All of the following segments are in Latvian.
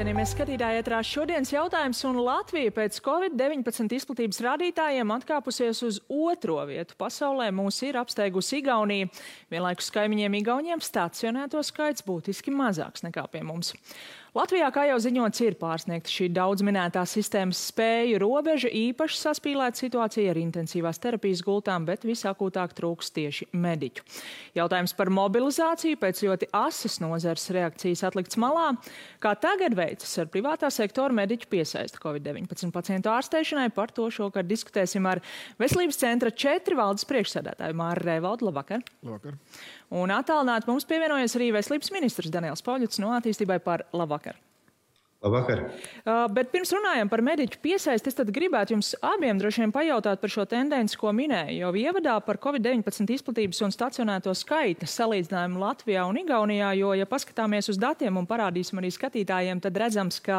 Cienījamies skatītāji, ētrā šodienas jautājums, un Latvija pēc Covid-19 izplatības rādītājiem atkāpusies uz 2. vietu pasaulē. Mūs ir apsteigusi Igaunija. Vienlaikus kaimiņiem Igauniem stacionēto skaits būtiski mazāks nekā pie mums. Latvijā, kā jau ziņots, ir pārsniegta šī daudz minētā sistēmas spēju robeža, īpaši saspīlēta situācija ar intensīvās terapijas gultām, bet visakūtāk trūks tieši mediķu. Jautājums par mobilizāciju pēc ļoti asas nozares reakcijas atlikts malā. Kā tagad veicas ar privātā sektora mediķu piesaisti Covid-19 pacientu ārstēšanai? Par to šokar diskutēsim ar Veselības centra 4 valdes priekšsēdētāju Māri Rēvaldu. Labvakar! Labvakar! Un attālināti mums pievienojas arī Veselības ministrs Daniels Pauļuts no Attīstībai par labvakar. Labvakar. Bet pirms runājam par mediķu piesaisti, es tad gribētu jums abiem droši vien pajautāt par šo tendenci, ko minēju. Jau ievadā par Covid-19 izplatības un stacionēto skaita salīdzinājumu Latvijā un Igaunijā, jo, ja paskatāmies uz datiem un parādīsim arī skatītājiem, tad redzams, ka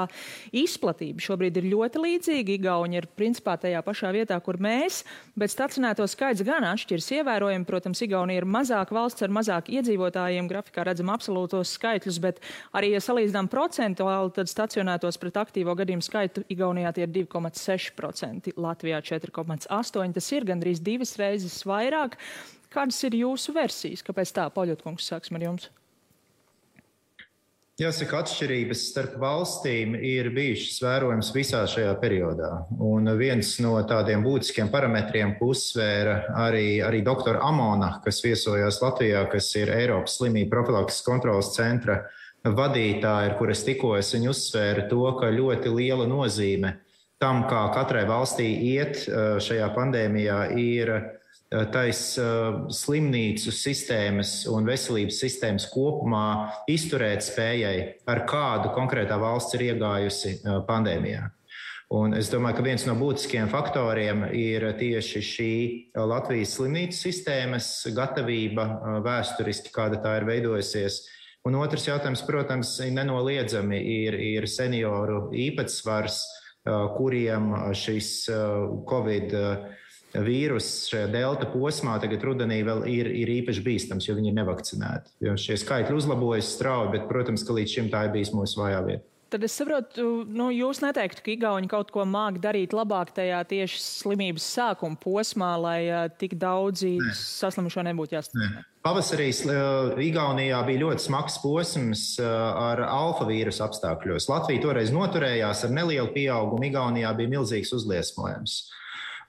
izplatība šobrīd ir ļoti līdzīga. Igauni ir principā tajā pašā vietā, kur mēs, bet stacionēto skaits gan atšķiras ievērojami. Protams, Igaunija ir mazāk valsts ar mazāk iedzīvotājiem, grafikā redzam absolūtos skaitļus, bet arī, ja salīdzinām procentuāli, tad stacionētos pret aktīvo gadījumu skaitu Igaunijā tie ir 2,6%, Latvijā 4,8%. Tas ir gandrīz 2 reizes vairāk. Kādas ir jūsu versijas? Kāpēc tā? Pauļotkungs, sāksim ar jums. Jāsaka, atšķirības starp valstīm ir bijušas vērojams visā šajā periodā. Un viens no tādiem būtiskiem parametriem, ko uzsvēra arī doktora Amona, kas viesojās Latvijā, kas ir Eiropas slimību profilakses kontrolas centra vadītāji, ar kur es tikos, viņi uzsvēra to, ka ļoti liela nozīme tam, kā katrai valstī iet šajā pandēmijā, ir tais slimnīcu sistēmas un veselības sistēmas kopumā izturēt spējai, ar kādu konkrētā valsts ir iegājusi pandēmijā. Un es domāju, ka viens no būtiskiem faktoriem ir tieši šī Latvijas slimnīcu sistēmas gatavība vēsturiski, kāda tā ir veidojusies. Un otrs jautājums, protams, nenoliedzami ir senioru īpatsvars, kuriem šis Covid vīrus šajā delta posmā tagad rudenī vēl ir īpaši bīstams, jo viņi ir nevakcinēti. Jo šie skaitļi uzlabojas strauji, bet, protams, ka līdz šim tā ir bijis mūsu vājā vieta. Tad es saprotu, jūs neteiktu, ka Igauni kaut ko māk darīt labāk tajā tieši slimības sākuma posmā, lai tik daudzi saslimušo nebūtu jāstacionē? Pavasarī Igaunijā bija ļoti smags posms ar alfa vīrusu apstākļos. Latvija toreiz noturējās ar nelielu pieaugumu, Igaunijā bija milzīgs uzliesmojums.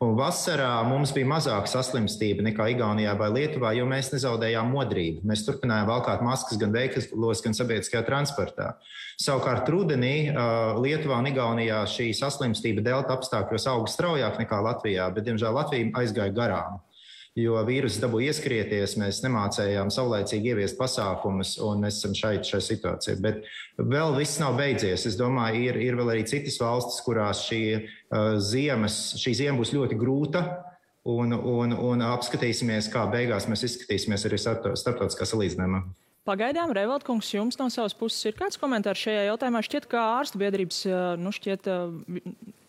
Un vasarā mums bija mazāk saslimstība nekā Igaunijā vai Lietuvā, jo mēs nezaudējām modrību. Mēs turpinājām valkāt maskas gan veikalos, gan sabiedriskajā transportā. Savukārt rudenī Lietuvā un Igaunijā šī saslimstība delta apstākļos auga straujāk nekā Latvijā, bet, diemžēl, Latvija aizgāja garām. Jo vīruss dabūja ieskrieties, mēs nemācējām saulēcīgi ieviest pasākumus, un mēs esam šai situācijā. Bet vēl viss nav beidzies. Es domāju, ir vēl arī citas valstis, kurās šī ziema būs ļoti grūta, un apskatīsimies, kā beigās mēs izskatīsimies arī starptautiskā salīdzinājumā. Pagaidām, Rēvaldkungs, jums no savas puses ir kāds komentārs šajā jautājumā? Šķiet, ka ārstu biedrības,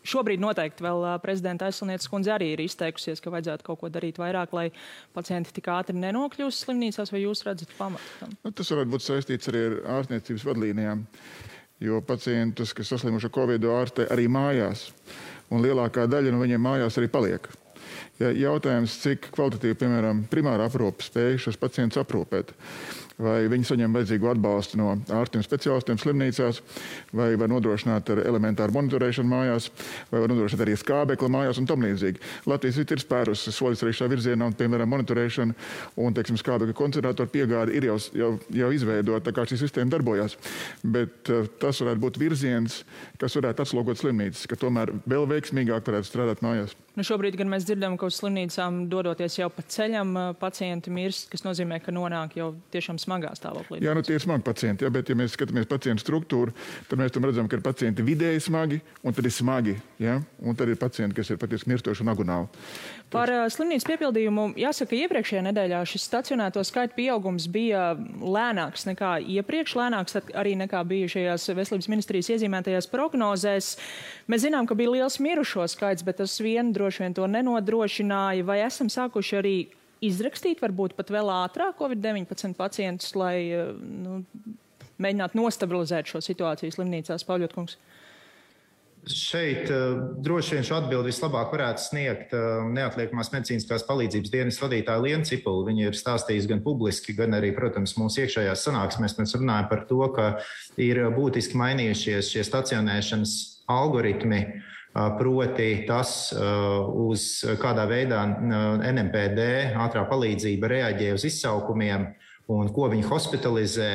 šobrīd noteikti vēl prezidenta aizsilnieces kundze arī ir izteikusies, ka vajadzētu kaut ko darīt vairāk, lai pacienti tik ātri nenokļūst slimnīcās, vai jūs redzat pamatu tam? Tas varētu būt saistīts arī ar ārstniecības vadlīnijām, jo pacientus, kas saslimuši ar Covid, ārstē arī mājās, un lielākā daļa no viņiem mājās arī paliek. Jautājums, cik kvalitatīvi, piemēram, primāra aprūpe spēj šos pacientus aprūpēt. Vai viņi saņem vajadzīgo atbalstu no ārstiem speciālistiem slimnīcās, vai var nodrošināt ar elementāru monitorēšanu mājās, vai var nodrošināt arī skābekli mājās un tam līdzīgi. Latvijas ir spērusi soļus arī šā virzienā, un, piemēram, monitorēšana un, teiksim, skābekļa koncentrātoru piegāde ir jau izveidota, tā kā šī sistēma darbojās. Bet tas varētu būt virziens, kas varētu atslogot slimnīcas, ka tomēr vēl veiksmīgāk varētu strādāt mājās. Šobrīd gan mēs dzirdam, ka uz slimnīcām dodoties jau pa ceļam pacienti mirst, kas nozīmē, ka nonāk jau tiešām smagā stāvoklī. Jā, tie ir smagi pacienti, bet ja mēs skatāmies pacientu struktūru, tad mēs tam redzam, ka ir pacienti vidēji smagi, un tad ir smagi, ja? Un tad ir pacienti, kas ir patiesi mirstoši un agonāli. Par slimnīcas piepildījumu jāsaka, iepriekšējā nedēļā šis stacionēto skaitu pieaugums bija lēnāks nekā iepriekš, lēnāks arī nekā bija šajās veselības ministrijas iezīmētajās prognozēs. Mēs zinām, ka bija liels mirušo skaits, bet tas vien droši vien to nenodrošināja. Vai esam sākuši arī izrakstīt varbūt pat vēl ātrāk Covid-19 pacientus, lai mēģināt nostabilizēt šo situāciju slimnīcās, Pauļotkungs? Šeit droši vien šo atbildi vislabāk varētu sniegt neatliekamās medicīniskās palīdzības dienas vadītāja Liena Cipula. Viņa ir stāstījusi gan publiski, gan arī, protams, mūsu iekšējās sanāksmēs. Mēs runājam par to, ka ir būtiski mainījušies šie stacionēšanas algoritmi, proti tas, uz kādā veidā NMPD ātrā palīdzība reaģē uz izsaukumiem un ko viņi hospitalizē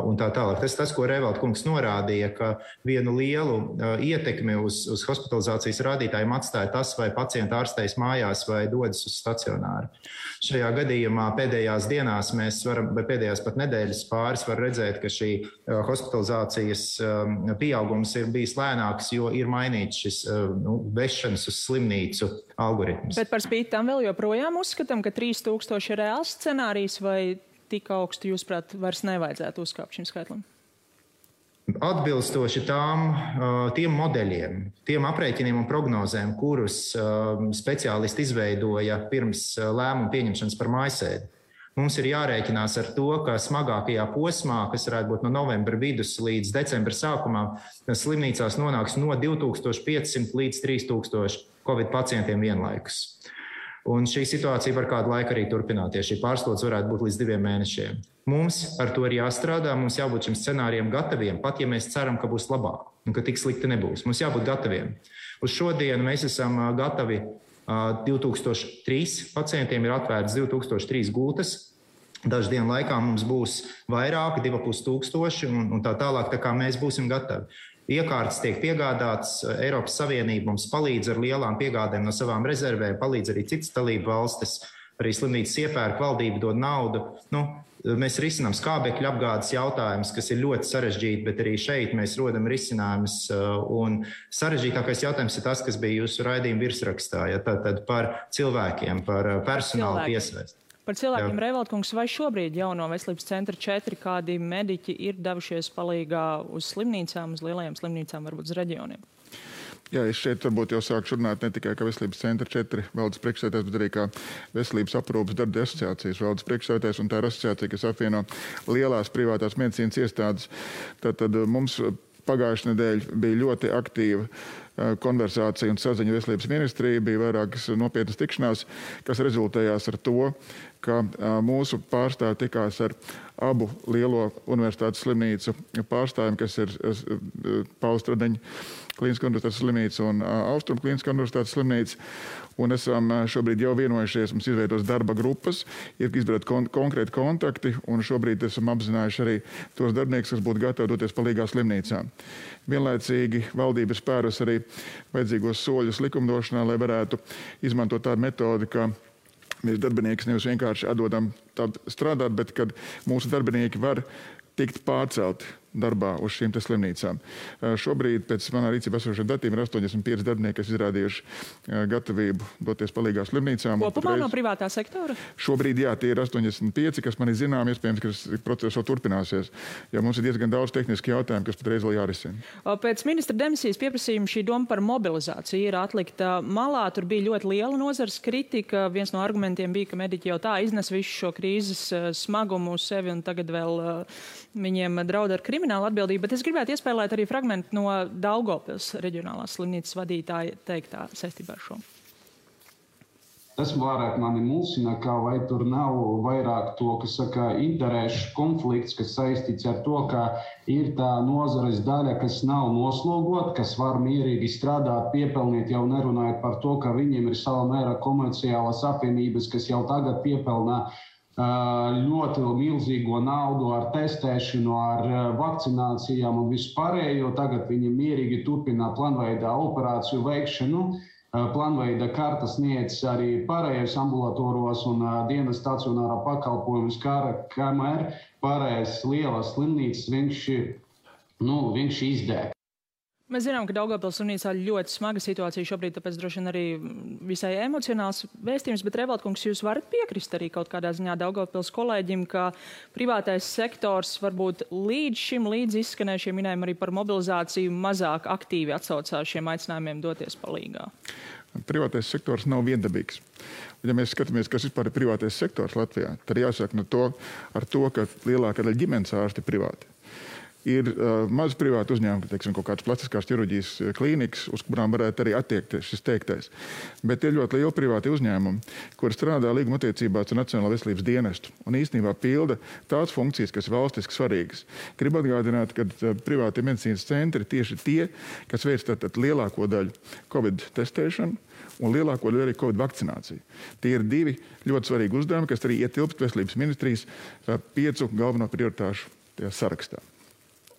un tā tālāk. Tas, ko Reivalda kungs norādīja, ka vienu lielu ietekmi uz hospitalizācijas rādītājiem atstāja tas, vai pacienti ārstējas mājās vai dodas uz stacionāru. Šajā gadījumā pēdējās dienās mēs varam, vai pēdējās pat nedēļas pāris var redzēt, ka šī hospitalizācijas pieaugums ir bijis lēnāks, jo ir mainīts šis vešanas uz slimnīcu algoritms. Bet par spīti tam vēl joprojām uzskatām, ka 3000 ir reāls scenārijs, vai tik augstu, jūsuprāt, vairs nevajadzētu uzkāpt šim skaitlim? Atbilstoši tiem modeļiem, tiem aprēķiniem un prognozēm, kurus speciālisti izveidoja pirms lēmumu pieņemšanas par mājasēdi, mums ir jārēķinās ar to, ka smagākajā posmā, kas varētu būt no novembra vidus līdz decembra sākumā, slimnīcās nonāks no 2500 līdz 3000 Covid pacientiem vienlaikus. Un šī situācija var kādu laiku arī turpināties. Šī pārslodze varētu būt līdz 2 mēnešiem. Mums ar to ir jāstrādā, mums jābūt šim scenārijam gataviem, pat ja mēs ceram, ka būs labāk un ka tik slikti nebūs. Mums jābūt gataviem. Uz šodienu mēs esam gatavi 2003 pacientiem, ir atvērts 2003 gultas. Dažu dienu laikā mums būs vairāk, 2500 un tā tālāk, tā kā mēs būsim gatavi. Iekārtas tiek piegādātas, Eiropas Savienība mums palīdz ar lielām piegādēm no savām rezervēm, palīdz arī citas dalību valstis, arī slimnīcas iepērk, valdība dod naudu. Mēs risinām skābekļu apgādes jautājumus, kas ir ļoti sarežģīti, bet arī šeit mēs rodam risinājumus. Un sarežģītākais jautājums ir tas, kas bija jūsu raidījuma virsrakstā, tātad par cilvēkiem, par personālu piesaisti. Par cilvēkiem, Reivalda kungs, vai šobrīd jauno veselības centra 4 kādi mediķi ir devušies palīgā uz slimnīcām, uz lielajām slimnīcām, varbūt uz reģioniem? Jā, es šeit varbūt jau sāku runāt ne tikai kā veselības centra 4 valdes priekšsēdētājs, bet arī kā veselības aprūpes darba asociācijas valdes priekšsēdētājs, un tā ir asociācija, kas apvieno lielās privātās medicīnas iestādes. Tātad mums pagājušajā nedēļā bija ļoti aktīva konversācija un saziņa veselības ministrija, bija vairākas nopietnas tikšanās, kas rezultējās ar to, ka mūsu pārstāvi tikās ar abu lielo universitātes slimnīcu pārstāvjiem, kas ir Paula Stradiņa Kliniskā universitātes slimnīca un Austrum Kliniskā universitātes slimnīca. Un esam šobrīd jau vienojušies, mums izveidos darba grupas, ir izveidot konkrēti kontakti, un šobrīd esam apzinājuši arī tos darbiniekus, kas būtu gatavi doties palīgā slimnīcām. Vienlaicīgi valdība spērus arī vajadzīgos soļus likumdošanā, lai varētu izmantot tādu metodi, ka mēs darbinieki nevis vienkārši atdodam strādāt, bet kad mūsu darbinieki var tikt pārcelti darbā uz šīm slimnīcām. Šobrīd pēc manā rīcībā esošiem datiem ir 85 darbinieki, kas izrādījuši gatavību doties palīgā slimnīcām. Kopumā no privātā sektora? Šobrīd, jā, tie ir 85, kas man ir zinām, iespējams, ka process vēl turpināsies, jo mums ir diezgan daudz tehniski jautājumu, kas patreiz vēl jārisina. Pēc ministra demisijas pieprasījuma šī doma par mobilizāciju ir atlikta malā. Tur bija ļoti liela nozares kritika. Viens no argumentiem bija, ka mediķi jau tā iznes visu šo krīzes smagumu uz sevi un tagad vēl viņiem draud ar kriminālu atbildību, bet es gribētu iespēlēt arī fragmentu no Daugavpils reģionālās slimnīcas vadītāja teiktā saistībā ar šo. Tas vairāk mani mulsina, kā vai tur nav vairāk to, kas saka, interešu konflikts, kas saistīts ar to, ka ir tā nozares daļa, kas nav noslogot, kas var mierīgi strādāt, piepelnīt, jau nerunājot par to, ka viņiem ir sava mēra komerciālas apvienības, kas jau tagad piepelnā ļoti milzīgo naudu ar testēšanu, ar vakcinācijām un vispārējo. Tagad viņi mierīgi turpina plānveidā operāciju veikšanu. Plānveida karta sniedz arī pārējais ambulatoros un dienas stacionārā pakalpojumus, kamēr pārējais lielas slimnīcas viņš izdēk. Mēs zinām, ka Daugavpils slimnīcā ļoti smaga situācija šobrīd, tāpēc droši vien arī visai emocionāls vēstījums, bet Reivalda kungs, jūs varat piekrist arī kaut kādā ziņā Daugavpils kolēģim, ka privātais sektors varbūt līdz izskanējušiem minējumiem arī par mobilizāciju mazāk aktīvi atsaucās šiem aicinājumiem doties palīgā? Privātais sektors nav viendabīgs. Ja mēs skatāmies, kas vispār ir privātais sektors Latvijā, tad jāsaka ar to, ka lielākā daļa ģimenes ārsti ir privāti. Ir maz privāti uzņēmumi, teiksim, kaut kādas plastiskās ķirurģijas klīnikas, uz kurām varētu arī attiekties šis teiktais. Bet ir ļoti lieli privāti uzņēmumi, kuri strādā līguma attiecībās ar Nacionālo veselības dienestu un īstenībā pilda tās funkcijas, kas ir valstiski svarīgas. Gribu atgādināt, ka privātie medicīnas centri tieši tie, kas veic tātad lielāko daļu Covid testēšanu un lielāko daļu arī Covid vakcināciju. Tie ir divi ļoti svarīgi uzdevumi, kas arī ietilpst veselības ministrijas 5 galveno prioritāšu tajā sarakstā.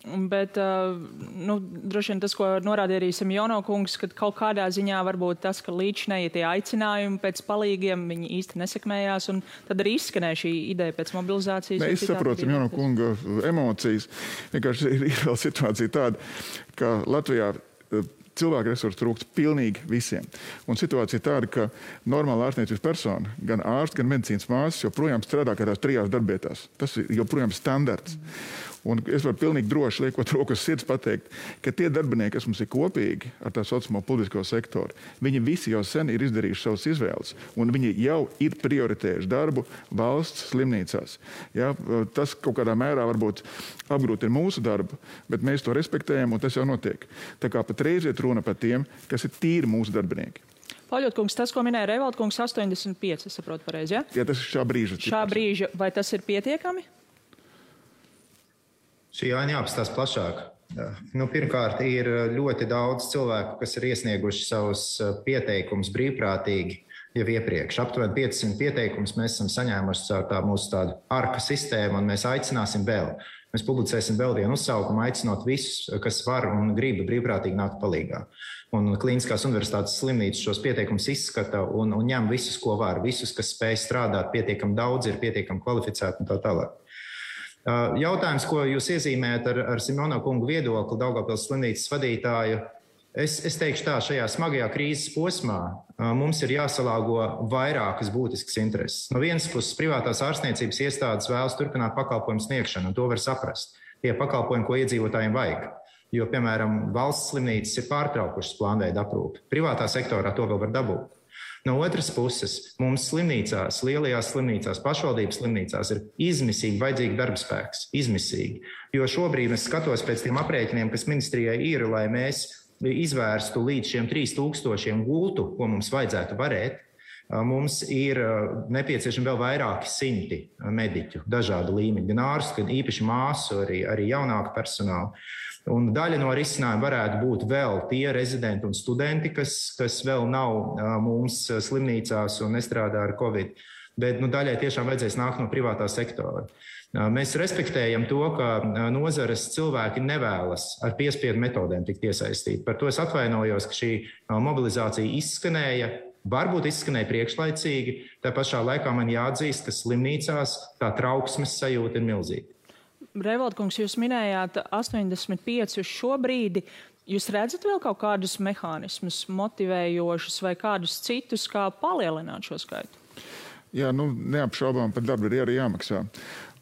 Bet, droši vien tas, ko norādīja arī Simjono kungs, ka kaut kādā ziņā varbūt tas, ka līdzinēji tie aicinājumi pēc palīgiem, viņi īsti nesekmējās, un tad arī izskanēja šī ideja pēc mobilizācijas. Es saprotu Simjono kunga emocijas. Vienkārši ir vēl situācija tāda, ka Latvijā cilvēku resursu trūkst pilnīgi visiem. Un situācija tāda, ka normāla ārstniecības persona, gan ārsts, gan medicīnas māsas joprojām strādā kādās 3 darbietās. Tas ir joprojām standarts. Un es varu pilnīgi droši, liekot rokas sirds, pateikt, ka tie darbinieki, kas mums ir kopīgi ar tā saucamo publisko sektoru, viņi visi jau sen ir izdarījuši savas izvēles, un viņi jau ir prioritējuši darbu valsts slimnīcās. Ja, tas kaut kādā mērā varbūt apgrūtina mūsu darbu, bet mēs to respektējam, un tas jau notiek. Tā kā patreiz iet runa par tiem, kas ir tīri mūsu darbinieki. Paļotkungs, tas, ko minēja Revaltkungs, 85, es saprotu pareizi, ja? Jā, tas ir šā brīža. Šā brīža, vai tas ir pietiekami? Šī aina jāapstāsta plašāk. Pirmkārt, ir ļoti daudz cilvēku, kas ir iesnieguši savus pieteikumus brīvprātīgi jau iepriekš. Aptuveni 500 pieteikumus mēs esam saņēmuši caur mūsu tādu ARKA sistēmu, un mēs aicināsim vēl. Mēs publicēsim vēl vienu uzsaukumu, aicinot visus, kas var un grib brīvprātīgi nākt palīgā. Un Kliniskās universitātes slimnīcas šos pieteikumus izskata un ņem visus, ko var. Visus, kas spēj strādāt, pietiekami daudz, ir pietiekami kvalificēti un tā tālāk. Jautājums, ko jūs iezīmējat ar Simjono kungu viedokli, Daugavpils slimnīcas vadītāju, es teikšu tā, šajā smagajā krīzes posmā mums ir jāsalāgo vairākas būtiskas intereses. No vienas puses, privātās ārstniecības iestādes vēlas turpināt pakalpojumu sniegšanu, un to var saprast. Tie pakalpojumi, ko iedzīvotājiem vajag. Jo, piemēram, valsts slimnīcas ir pārtraukušas plānveida aprūpi. Privātā sektorā to vēl var dabūt. No otras puses, mums slimnīcās, lielajās slimnīcās, pašvaldības slimnīcās ir izmisīgi vajadzīgi darbspēks. Izmisīgi. Jo šobrīd es skatos pēc tiem aprēķiniem, kas ministrijai ir, lai mēs izvērstu līdz šiem 3000 gultu, ko mums vajadzētu varēt. Mums ir nepieciešami vēl vairāki 100 mediķu, dažādu līmeņu, gan ārstu, gan īpaši māsu, arī jaunāku personālu. Un daļa no risinājuma varētu būt vēl tie rezidenti un studenti, kas vēl nav mums slimnīcās un nestrādā ar Covid. Bet daļai tiešām vajadzēs nākt no privātā sektora. Mēs respektējam to, ka nozares cilvēki nevēlas ar piespiedu metodēm tikt iesaistīti. Par to es atvainojos, ka šī mobilizācija izskanēja. Varbūt izskanēja priekšlaicīgi, tā pašā laikā man jāatzīst, ka slimnīcās tā trauksmes sajūta ir milzīga. Revaltkungs, jūs minējāt 85 uz šo brīdi. Jūs redzat vēl kaut kādus mehānismus motivējošus vai kādus citus, kā palielināt šo skaitu? Jā, neapšaubām par darbu ir arī jāmaksā.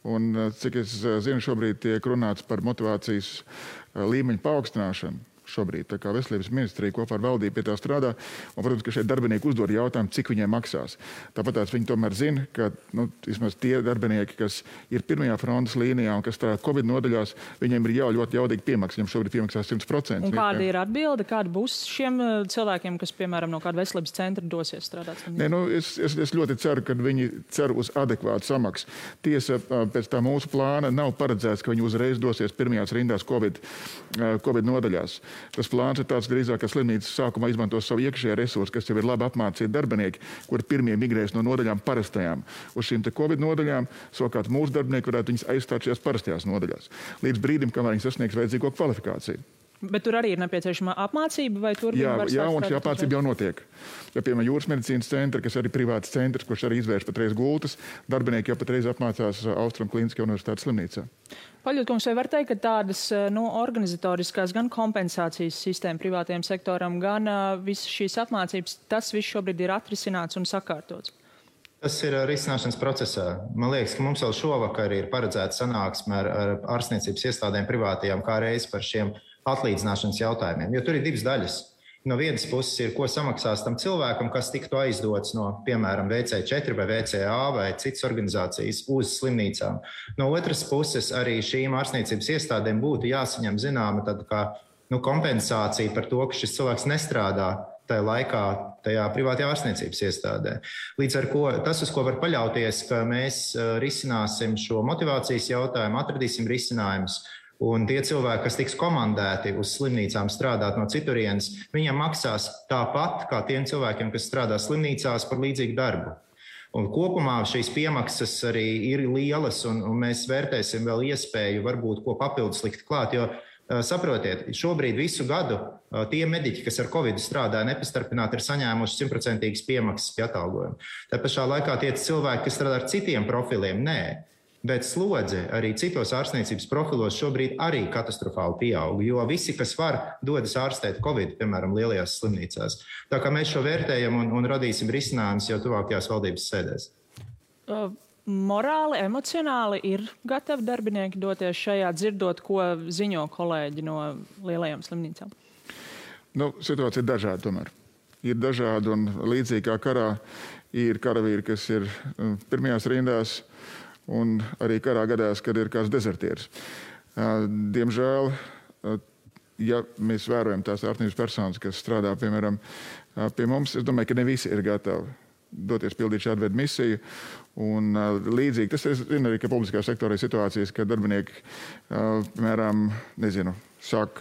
Un, cik es zinu, šobrīd tiek runāts par motivācijas līmeņu paaugstināšanu. Šobrīd, tā kā veselības ministrija kopā ar valdību pie tā strādā, un, protams, ka šeit darbinieki uzdod jautājumu, cik viņiem maksās. Tāpat viņi tomēr zina, ka vismaz tie darbinieki, kas ir pirmajā frontes līnijā un kas strādā Covid nodaļās, viņiem ir jau ļoti jaudīgi piemaksas, viņiem šobrīd piemaksās 100%. Un kāda ir atbilde, kāda būs šiem cilvēkiem, kas, piemēram, no kāda veselības centra dosies strādāt? Nē, es ļoti ceru, ka viņi cer uz adekvātu samaksu. Tiesa, pēc tā mūsu plāna nav paredzēts, ka viņi uzreiz dosies pirmajās rindās Covid nodaļās. Tas plāns ir tāds drīzāk, ka slimnīcas sākumā izmantos savu iekšējā resursu, kas jau ir labi apmācīti darbinieki, kuri pirmie migrēs no nodaļām parastajām uz šīm te Covid nodaļām, savukārt mūsu darbinieki varētu viņus aizstāt šajās parastajās nodaļās. Līdz brīdim, kamēr viņi sasniegs vajadzīgo kvalifikāciju. Bet tur arī ir nepieciešama apmācība, vai tur jā, un šī apmācība jau notiek. Ja, piemēram, Jūras medicīnas centra, kas arī privāts centrs, kurš arī izvērš patreiz gultas, darbinieki jau patreiz apmācās Austrum Kliniskajā universitātes slimnīcā. Paļotkungs, vai var teikt, ka tādas organizatoriskās gan kompensācijas sistēma privātajam sektoram, gan visas šīs apmācības, tas viss šobrīd ir atrisināts un sakārtots? Tas ir risināšanas procesā. Man liekas, ka mums vēl šovakar ir paredzēta sanāksme ar ārstniecības iestādēm privātajām kā reiz par šiem atlīdzināšanas jautājumiem, jo tur ir divas daļas. no vienas puses ir, ko samaksās tam cilvēkam, kas tiktu aizdots no, piemēram, VC4 vai VCA vai citas organizācijas uz slimnīcām. No otras puses arī šīm ārstniecības iestādēm būtu jāsaņem zināma tāda kā kompensācija par to, ka šis cilvēks nestrādā tajā laikā, tajā privātajā ārstniecības iestādē. Līdz ar ko tas, uz ko var paļauties, ka mēs risināsim šo motivācijas jautājumu, atradīsim risinājumus, un tie cilvēki, kas tiks komandēti uz slimnīcām strādāt no citurienes, viņiem maksās tāpat kā tiem cilvēkiem, kas strādā slimnīcās par līdzīgu darbu. Un kopumā šīs piemaksas arī ir lielas, un mēs vērtēsim vēl iespēju varbūt ko papildus likt klāt, jo saprotiet, šobrīd visu gadu tie mediķi, kas ar Covid strādāja nepastarpināti, ir saņēmuši 100% piemaksas pie atalgojuma. Tā pašā laikā tie cilvēki, kas strādā ar citiem profiliem, nē. Bet slodze arī citos ārstniecības profilos šobrīd arī katastrofāli pieaug, jo visi, kas var, dodas ārstēt Covid, piemēram, lielajās slimnīcās. Tā kā mēs šo vērtējam un radīsim risinājumus jau tuvākajās valdības sēdēs. Morāli, emocionāli ir gatavi darbinieki doties šajā, dzirdot, ko ziņo kolēģi no lielajām slimnīcām? Situācija ir dažāda tomēr. Ir dažādi un līdzīgi kā karā ir karavīri, kas ir pirmajās rindās un arī karā gadās, kad ir kāds dezertieris. Diemžēl, ja mēs vērojam tās ārstniecības personas, kas strādā, piemēram, pie mums, es domāju, ka ne visi ir gatavi doties pildīt šādu veidu misiju. Un līdzīgi, tas ir arī, ka publiskā sektorā ir situācijas, ka darbinieki, piemēram, sāk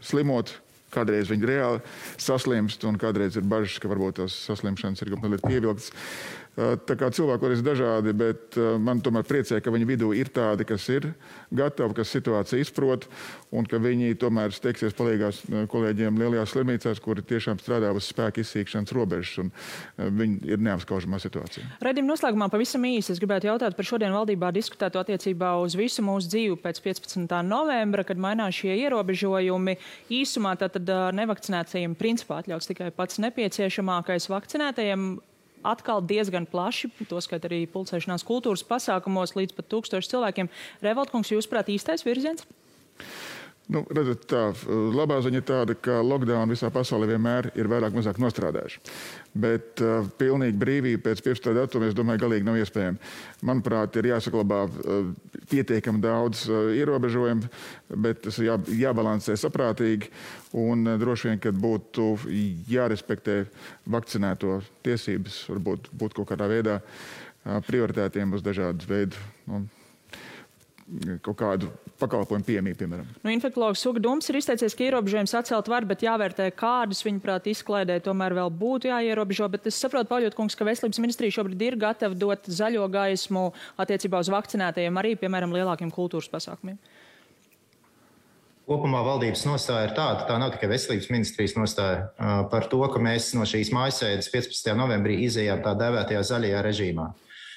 slimot, kādreiz viņi reāli saslimst, un kādreiz ir bažas, ka varbūt tās saslimšanas ir mazliet pievilktas. Tā kā cilvēki ir dažādi, bet man tomēr priecē, ka viņu vidū ir tādi, kas ir gatavi, kas situāciju izprot, un ka viņi tomēr steigsies palīgās kolēģiem lielajās slimnīcās, kuri tiešām strādā uz spēku izsīkšanas robežas, un viņi ir neapskaužamā situācijā. Raidījuma noslēgumā pavisam īsi es gribētu jautāt par šodien valdībā diskutēto attiecībā uz visu mūsu dzīvi pēc 15. novembra, kad mainās šie ierobežojumi. Īsumā tātad nevakcinētajiem principā atļauts tikai pats nepieciešamākais, vakcinētajiem atkal diezgan plaši, toskat arī pulcēšanās kultūras pasākumos līdz pat 1000 cilvēkiem. Revoltkungs, jūsuprāt, īstais virziens? Redzat, tā labā ziņa ir tāda, ka lockdown visā pasaulē vienmēr ir vairāk mazāk nostrādājuši. Bet pilnīgi brīvība pēc 15. datuma, es domāju, galīgi nav iespējama. Manuprāt, ir jāsaglabā pietiekami daudz ierobežojumu, bet tas jābalansē saprātīgi un droši vien, kad būtu jārespektē vakcinēto tiesības, varbūt būt kaut kādā veidā prioritētiem uz dažādu veidu kaut kādu pakalpojumu pieejamību, piemēram. Infektologs Uga Dumpis ir izteicies, ka ierobežojums atcelt var, bet jāvērtē, kādus viņuprāt izklaidē tomēr vēl būtu jāierobežo. Bet es saprotu, Pauļotkungs, ka Veselības ministrija šobrīd ir gatava dot zaļo gaismu attiecībā uz vakcinētajiem arī, piemēram, lielākiem kultūras pasākumiem. Kopumā valdības nostāja ir tāda, tā nav tikai Veselības ministrijas nostāja, par to, ka mēs no šīs mājasēdes 15. novembrī izejām tā dēvētajā zaļajā režīmā.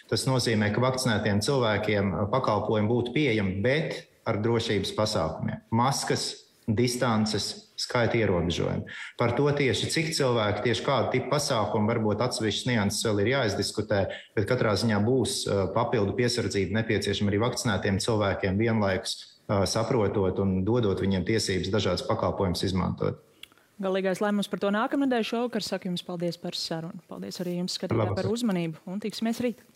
Tas nozīmē, ka vakcinētiem cilvēkiem pakalpojumi būtu pieejami, bet ar drošības pasākumiem. Maskas, distances, skaita ierobežojumi. Par to tieši cik cilvēki, tieši kādu tipu pasākumu, varbūt atsevišķas nianses vēl ir jāizdiskutē, bet katrā ziņā būs papildu piesardzība nepieciešama arī vakcinētiem cilvēkiem vienlaikus saprotot un dodot viņiem tiesības dažādas pakalpojumus izmantot. Galīgais lēmums par to nākamnedēļ šovakar. Saku jums paldies par sarunu. Paldies arī jums, skatītāji, par uzmanību un tiksimies rīt.